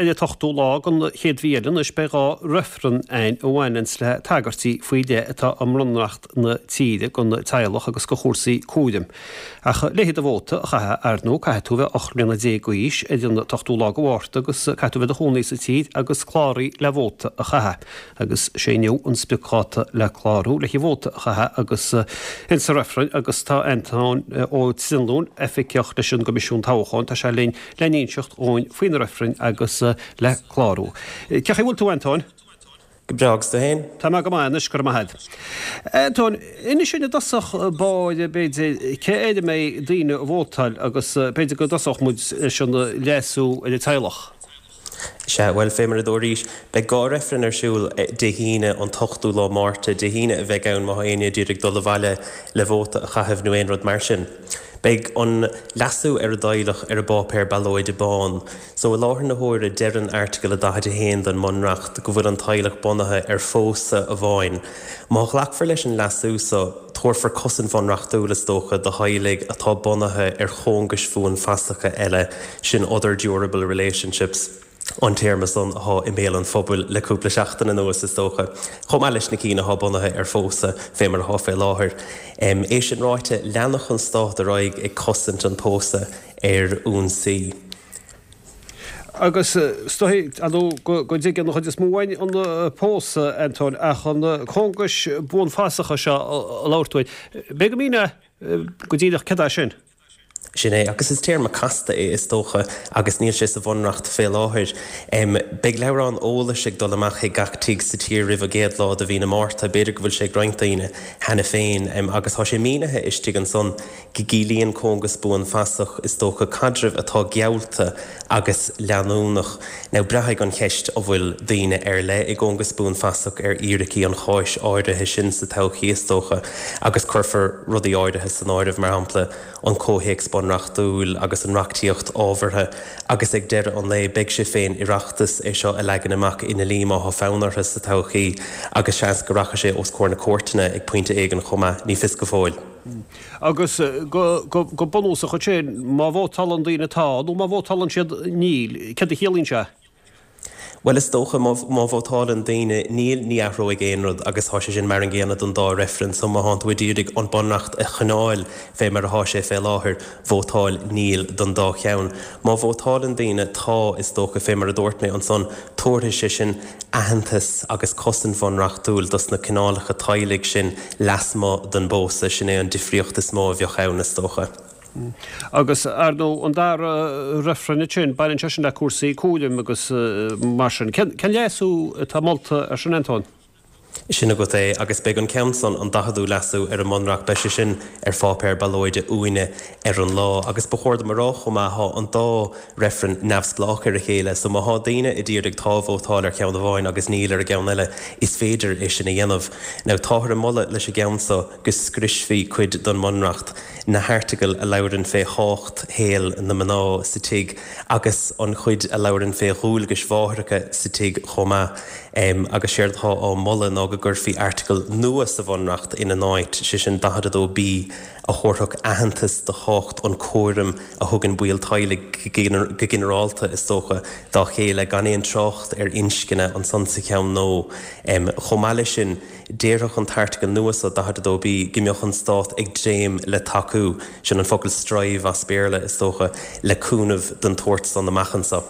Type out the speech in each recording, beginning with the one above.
Ar an t-ochtú lá den chéad mhí eile anois beidh 2 reifreann ann a bhaineanns le tagairtí faoi leith atá i mBunreacht na tíre don teaghlach agus do chúrsaí cúraim. Ach le do vóta a chaitheamh, ar ndóigh, caithfidh tú a bheith 18 mbliana d'aois ar an t-ochtú lá de Mhárta agus caithfidh tú a bheith i do chónaí sa tír agus cláraithe le vóta a chaitheamh. Agus sé inniu an spriocdháta le clárú le vóta a chaitheamh agus insa reifreann agus tá Antóin Ó Trinlúin, oifigeach leis an gCoimisiún Toghcháin, tá sé linn le n-inseacht dhúinn faoi na reifrinn agus le clárú. Cén chaoi a bhfuil tú, Antóin? Go breá, agus tú féin? Tá mé go maith anois, go raibh maith agat. Antóin, inis dúinn i dtosach báire, b'fhéidir, cé air a mbeidh daoine ag vótáil agus b'fhéidir go dtosódh muid leis an leasú ar an teaghlach. Sea, bhuel, fé mar a dúraís, beidh 2 reifreann ar siúl Dé hAoine, an t-ochtú lá Márta. Dé hAoine a bheidh ann má tá éinne ag iarraidh dul abhaile le vóta a chaitheamh nó aon rud mar sin. Beidh an leasú ar an dteaghlach ar an bpáipéar ballóide bán. So, i láthair na huaire, deireann Airteagal 41 den mBunreacht go bhfuil an teaghlach bunaithe ar phósadh amháin. Má ghlacfar leis an leasú so, tabharfar cosaint bhunreachtúil, is dócha, do theaghlaigh atá bunaithe ar chóngais bhuanfhasacha eile, sin other durable relationships an téarma san athá i mbéal an phobail le cúpla seachtain anuas, is dócha, chomh maith leis na cinn athá bunaithe ar phósadh, fé mar athá fé láthair. É sin ráite, leanfadh an Stát ar aghaidh ag cosaint an pósadh ar ionsaí. Agus is dóigh, ar ndóigh, go dtuigeann an chuid is mó againn an pósadh, Antóin, ach an cóngais buanfasacha seo a labhair tú air, b'fhéidir go míneofá go díreach céard é sin? Sin é, agus is téarma casta é, is dócha, agus níl sé sa Bhunreacht fé láthair. Beidh leabhrán eolais ag dul amach chuig gach tigh sa tír roimh an gcéad lá de mhí na Márta, b'fhéidir go bhfuil sé ag roinnt daoine cheana féin, agus tá sé mínithe istigh ansan go gciallaíonn cóngas buanfasach, is dócha, caidreamh atá geallta agus leanúnach. Now, braithfidh an cheist an bhfuil daoine ar leith i gcóngas buanfasach ar fhíricí an cháis áirithe sin sa todhchaí, is dócha, agus cuirfear rudaí áirithe san áireamh, mar shampla, an comhthéacs bunreachtúil agus an reachtaíocht ábhartha, agus ag deireadh an lae, beidh sé fén Oireachtas é seo a leagan amach i ndlí má thá fonn orthu sa todhchaí, agus seans go rachaidh sé os comhair na cúirteanna ag pointe éigin chomh maith, ní fios go fóill. Agus go bunúsach ansin, má vótálann daoine tá, nó má vótálann siad níl, céard a chiallaíonn sé? Bhuel, is dócha, má vótálann daoine níl, ní athróidh aon rud agus tá sé sin mar an gcéanna don dá reifreann. So má thánn tú ag iarraidh an Bunreacht a choinneáil fé mar athá sé fé láthair, vótáil níl don dá cheann. Má vótálann daoine tá, is dócha, fé mar a dúirt mé ansan, tabharfaidh sé sin aitheantas agus cosaint bhunreachtúil dos na cineálacha teaghlaigh sin lasmuigh den bpósadh. Sin é an difríocht is mó a bheadh ann, is dócha. Agus, ar ndóigh, an dara reifreann ansin, baineann sé sin le cúrsaí cúraim agus mar sin. Cén leasú atá molta ar sin, Antóin? Sin agat é, agus beidh an ceann san, an daicheadú leasú ar an mBunreacht, beidh sé sin ar pháipéar ballóide uainne ar an lá. Agus ba chóir dom a rá chomh maith, thá an dá reifreann neamhspleách ar a chéile, so má thá daoine a d'iarraidh tá a vótáil ar cheann amháin agus níl ar an gceann eile, is féidir é sin a dhéanamh. Now, táthar ag moladh leis an gceann so go scriosfaí cuid don mBunreacht, na hairteagail a labhrann fé thábhacht shaol na mná sa tigh agus an chuid a labhrann fé dhualgais mháithreacha sa tigh chomh maith. Agus séard atá á moladh ná go gcuirfí airteagal nua sa Bhunreacht ina n-áit, sé sin 42B, a thabharfadh aitheantas do thábhacht an chúraim a thugann baill teaghlaigh go ginearálta, is dócha, dá chéile, gan aon trácht ar inscne ansan sa cheann nua. Chomh maith leis sin, déarfadh an t-airteagal nua so, 42B, go mbeadh an Stát ag dréim le tacú, sin an focal strive as Béarla, is dócha, le cúnamh den tsórt san amach anso.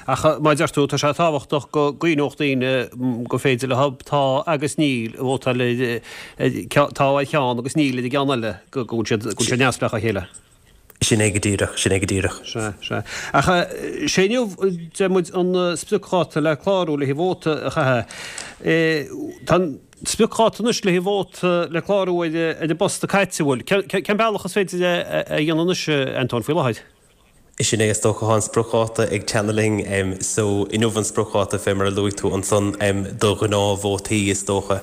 Ach mar a deir tú, tá sé tábhachtach go gcuimhneodh daoine gur féidir leo tá agus níl a vótáil ar tá ar cheann agus níl ar an gceann eile, go bhfuil siad go bhfuil siad neamhspleách á chéile. Sin é go díreach, sin é go díreach. Sea, sea. Ach sé inniu, deir muid, an spriocdháta le clárú le haghaidh vóta a chaitheamh. Tá an spriocdháta anois le haghaidh vóta le clárú ar an bpost caite, an bhfuil? Cén bealach is féidir é a dhéanamh anois, Antóin, faoi láthair? Sin é, is dócha, tá an spriocdháta ag teannadh linn. So, inniu an spriocdháta, fé mar a luaigh tú ansan, do ghnáthvótaí, is dócha.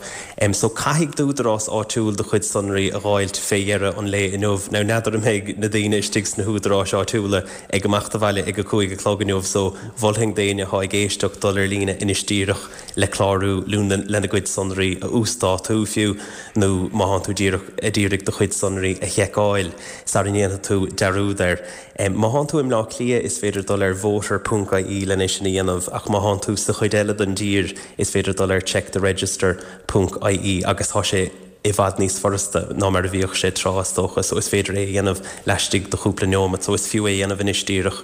So, caithfidh d'údarás áitiúil do chuid sonraí a dh'fháilt fé dheireadh an lae inniu. Now, n'fheadar an mbeidh na daoine istigh sna húdaráis áitiúla ag imeacht abhaile ag a 5 a chlog inniu, so mholfainn d'éinne athá ag éisteacht dul ar líne anois díreach le clárú, lena gcuid sonraí a uasdátú fiú, nó má thánn tú díreach a d'iarraidh do chuid sonraí a sheiceáil sara ndéanfaidh tú dearúd air. Má thánn tú. i mBleá Cliath is féidir dul ar voter ponc ie len é sin a dhéanamh ach má thánn tú sa chuid eile den dtír is féidir dul ar checktheregister ponc ie agus tá sé i bhfad níos furasta ná mar a bhíodh sé tráth is dócha so is féidir é a dhéanamh laistigh de chúpla neomat so is fiú é a dhéanamh anois díreach.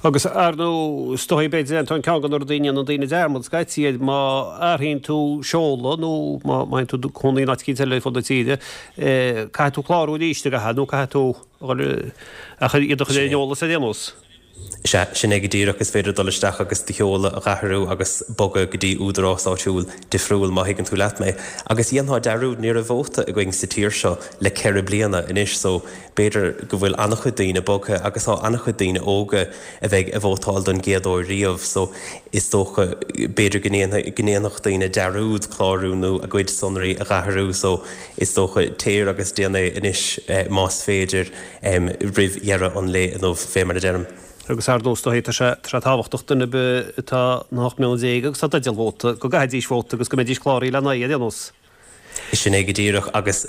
Agus ar ndóigh, is dóigh, b'fhéidir, Antóin, ceann de na rudaí a ndéanann daoine dearmad scaití air, má athraíonn tú seoladh nó má théann tú cónaí in áit eicínt eile ar fud na tíre, caithfidh tú clárú arís, an gcaithfidh, nó caithfidh tú ach iad a chur ar an eolas ar aon nós. Sea, sin é go díreach, is féidir dul isteach agus do sheoladh a dh'athrú agus bogadh go dtí údarás áitiúil difriúil, má thuigeann tú leat mé. Agus dhéanfá dearúd, ní raibh vóta againn sa tír seo le ceithre bliana anois, so b'fhéidir go bhfuil an-chuid daoine bogtha agus tá an-chuid daoine óga a bheidh ag vótáil don gcéad uair riamh, so is dócha, b'fhéidir go ndéanfadh daoine dearúd clárú nó a gcuid sonraí a dh'athrú, so is dócha, téir agus déan é anois más féidir. roimh dheireadh an lae inniu, fé mar a deirim. Agus ar ndóigh, is dóigh, tá sé tábhachtach duine ar bith atá na 18 mbliana agus atá i dteideal vóta, go gcaithfidís vóta agus go mbeidís cláraithe lena aghaidh ar aon nós. Sin é go díreach, agus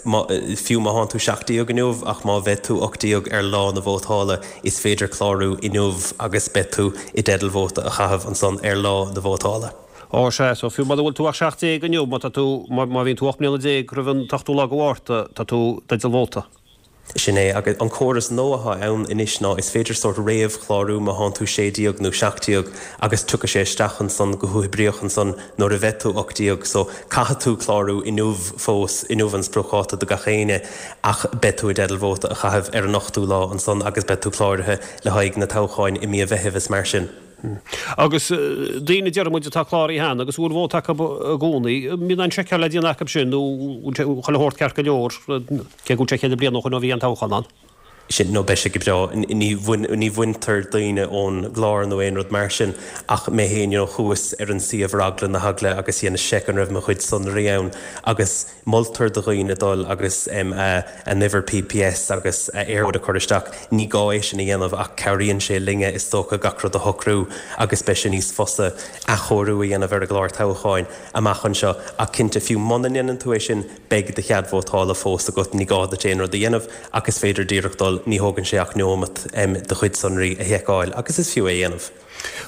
fiú má thánn tú 17 inniu, ach má bheidh tú 18 ar lá na vótála, is féidir clárú inniu agus beidh tú i dteideal vóta a chaitheamh ansan ar lá na vótála. Ó, sea, so fiú mura bhfuil tú ach 17 inniu, má tá tú, má bhíonn tú 18 mbliana roimh an t-ochtú lá de Mhárta, tá tú i dteideal vóta. Sin é. Agus an córas nua atá ann anois ná is féidir sórt réamhchlárú má thánn tú 16 nó 17 agus tiocfaidh sé isteach ansan go huathoibríoch ansan nuair a bheidh tú 18. So caithfidh tú clárú inniu fós, inniu an spriocdháta do gach éinne ach beidh tú i dteideal vóta a chaitheamh ar an ochtú lá ansan agus beidh tú cláraithe le haghaidh na toghcháin i mí an Mheithimh is mar sin. Agus daoine, déarfaidh muid, atá cláraithe cheana agus a bhfuil vóta acu i gcónaí, an mbíonn aon seiceáil le déanamh acu sin nó bhfuil sé chuile shórt ceart go leor, cé go bhfuil sé cheithre bliana ó shoin ó bhí an toghchán ann? Sin, nó beidh sé go breá. Ní, ní bhaintear daoine ón gclár nó aon rud mar sin ach mé féin, you know, chuas ar an suíomh ar eagla na heagla agus dheineas seic an raibh mo chuid sonraí ann agus Moltar do dhaoine dul agus a n-uimhir PPS agus a Eircode a chur isteach. Ní gá é sin a dhéanamh ach cabhraíonn sé linne, is dócha, gach rud a shocrú agus beidh sé níos fusa athchóiriú a dhéanamh ar an gclár toghcháin amach anseo. Ach cinnte, fiú muna ndéanann tú é sin, beidh do chead vótála fós agat, ní gá duit aon rud a dhéanamh ach is féidir díreach dul, ní thógann sé ach neomat do chuid sonraí a sheiceáil agus is fiú é a dhéanamh.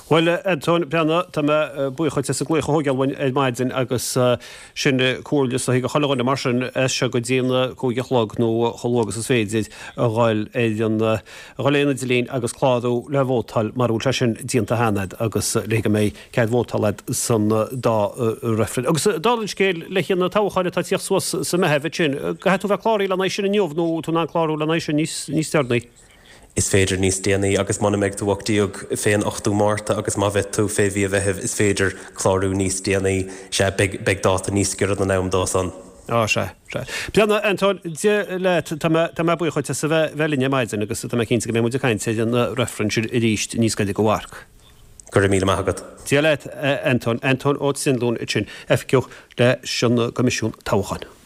Bhuel, a Antóin Breathnaigh, tá mé buíoch dhuit as an glaoch a thógáil uainn ar maidin agus sin comhairle is dóichí do chuile dhuine mar sin as seo go dtí an 5 a chlog nó chomh luath agus is féidir a dhul ar an a dhul ar an idirlíon agus clárú le vótáil mara bhfuil sé sin déanta cheana agat agus le go mbeidh cead vótála agat san dá reifreann. Agus dála an scéil le haghaidh na toghcháin atá ag tíocht suas sa Meitheamh ansin, caithfidh tú bheith cláraithe lena aghaidh sin inniu nó tú in ann clárú lena aghaidh sin níos deireanaí? Is féidir níos déanaí agus muna mbeidh tú 18 fén 8ú Márta agus má bheidh tú fé mhí an Mheithimh is féidir clárú níos déanaí. Sea, beidh, beidh dáta níos giorra don am dó san. Á, sea, sea. Breathnaigh, Antóin, Dia leat, tá mé, tá mé buíoch dhuit as a bheith, bheith linn ar maidin agus tá mé cinnte go mbeidh muid ag caint ar an reifreann sin arís níos gaire go mharc. Go raibh míle maith agat. Dia leat, a Antóin. Antóin Ó Trinlúin ansin, oifigeach leis an gCoimisiún Toghcháin.